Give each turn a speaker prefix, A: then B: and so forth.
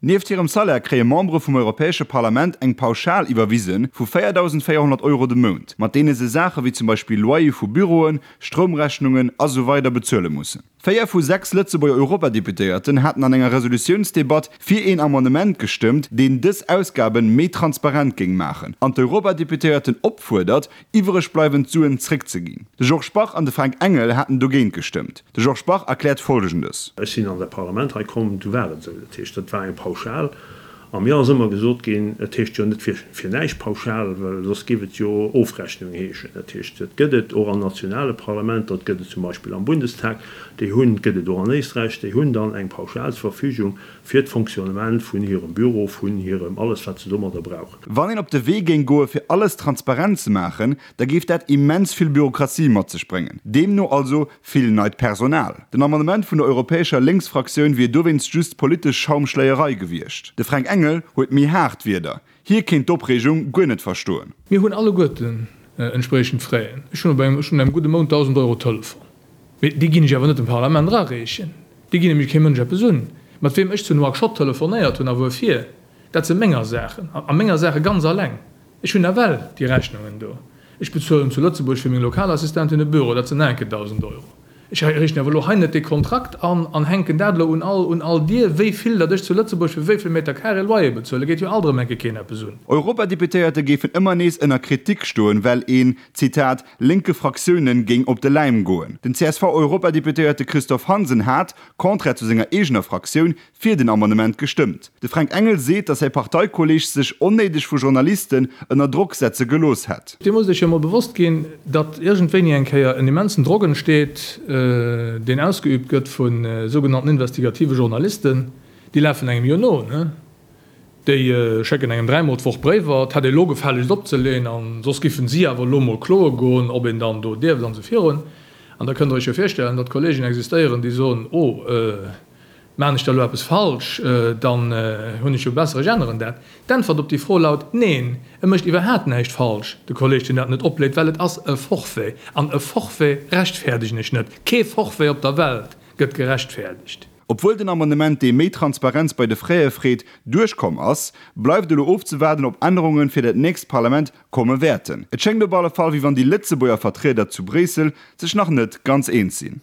A: Nieft hirem Salaire kréie Membere vum Europäesche Parlament eng Pauschal iwwerwise vu 4.400 Euro de Mount, mat deene se Saache wéi zum Beispill Loyer vu Büroen, Stroumrechnungen a sou weider bezuele mussen. Véier vu 6 Lëtzebuerger Europadeputéierten haten an enger Resolutiounsdebatt fir een Amendement gestëmmt, deen dës Ausgaben méi transparent géing maachen an d'Europadeputéierten opfuerdert, iwwereg bleiwend Suen zréckzeginn. De Georges Bach an de Fränk Engel haten dogéint gestëmmt. De Georges Bach erkläert Folgendes.
B: Ech sinn an dat Parlament hei komm, du war et esou. Dat heescht, dat war eng Pauschal. A mir ass ëmmer gesot ginn, et heescht jo net fir fir näischt Pauschal, well soss géif et jo Ofrechnung heeschen. Dat heescht, et gëtt et och an nationale Parlamenter, et gëtt et zum Beispill am Bundestag, déi hunn, et gëtt et och an Éisträich, déi hunn dann eng Pauschal zur Verfügung fir d'Fonctionnement vun hirem Büro, vun hirem alles, wat se domadder brauchen.
A: Wann een op de Wee géing goe fir alles transparent ze maachen, da géif dat immens vill Bürokratie mat sech bréngen, deemno also Vill neit Personal. Den Amendement vun der europäescher Lénksfraktioun wier dowéinst just politesch Schaumschléierei gewiescht. De Fränk Engel huet méi haart Wierder. Hie kéint d'Opreegung guer net verstoen.
C: Mir hunn alleguerten entspriechend Fräen. Ech hunn op engem, ech hunn engem gudde Mount 1.000 Euro Telefon. Mee déi ginn ech awer net dem Parlament erareechen. Déi ginn nämlech kee Mënsch eppes un. Mat weem ech zu Nouakchott telefonéiert hunn a wuerfir, dat si menger Saachen. A menger Saache ganz alleng. Ech hunn nawell déi Rechnungen do. Ech bezuelen zu Lëtzebuerg fir meng Lokalassistentin e Büro, dat sinn nach eng Kéier 1.000 Euro. Ech riichten awer elo hei net dee Kontrakt an an hänken dat elo un all un all Dier, wéi vill datt ech zu Lëtzebuerg fir wéi vill Meter carré Loyer bezuelen. Geet jo alt erëm eng Kéier keen eppes un.
A: Europadeputéierte géifen ëmmer nees ënner Kritik stoen, well een, Zitat, lénke Fraktiounen géing op de Läim goen. Den CSV-Europadeputéierte Christophe Hansen hat, contraire zu senger eegener Fraktioun, fir den Amendement gestëmmt. De Fränk Engel seet, datt säi Parteikolleeg sech onnéideg vu Journalisten ënner Drock setze gelooss hätt.
C: Dir musst Iech jo emol bewosst ginn, datt iergendwéini eng Kéier en immensen Drock entsteet, deen ausgeübt gëtt vu sougenannten investigative Journalisten. Déi lafen engem jo no, ne? Déi schécken engem dräimol d'Woch Bréiwer, et hätt ee lo gefällegst opzeleeën, a soss giffen si awer elo mol kloe goen, ob een dann do dierft an esou virun. An da kënnt Der Iech jo virstellen, datt Kollegen existéieren, déi soen, Oh, Maan ech da lo eppes falsch, dann hunn ech jo besser, ech änneren dat. D'Äntwert op déi Fro laut, Neen, e mécht iwwerhaat näischt falsch, de Kolleg deen dat net opleet, well et ass e Forfait. An e Forfait rechtfäerdegen ech net. Kee Forfait op der Welt gëtt gerechtfäerdegt.
A: Obwuel den Amendement, dee méi Transparenz bei de Fraie freet, duerchkomm ass, bleift elo ofzewaarden, ob Ännerunge fir dat nächst Parlament komme wäerten. Et schéngt op alle Fall, wéi wann déi Lëtzebuerger Vertrieder zu Bréissel sech nach net ganz eens sinn.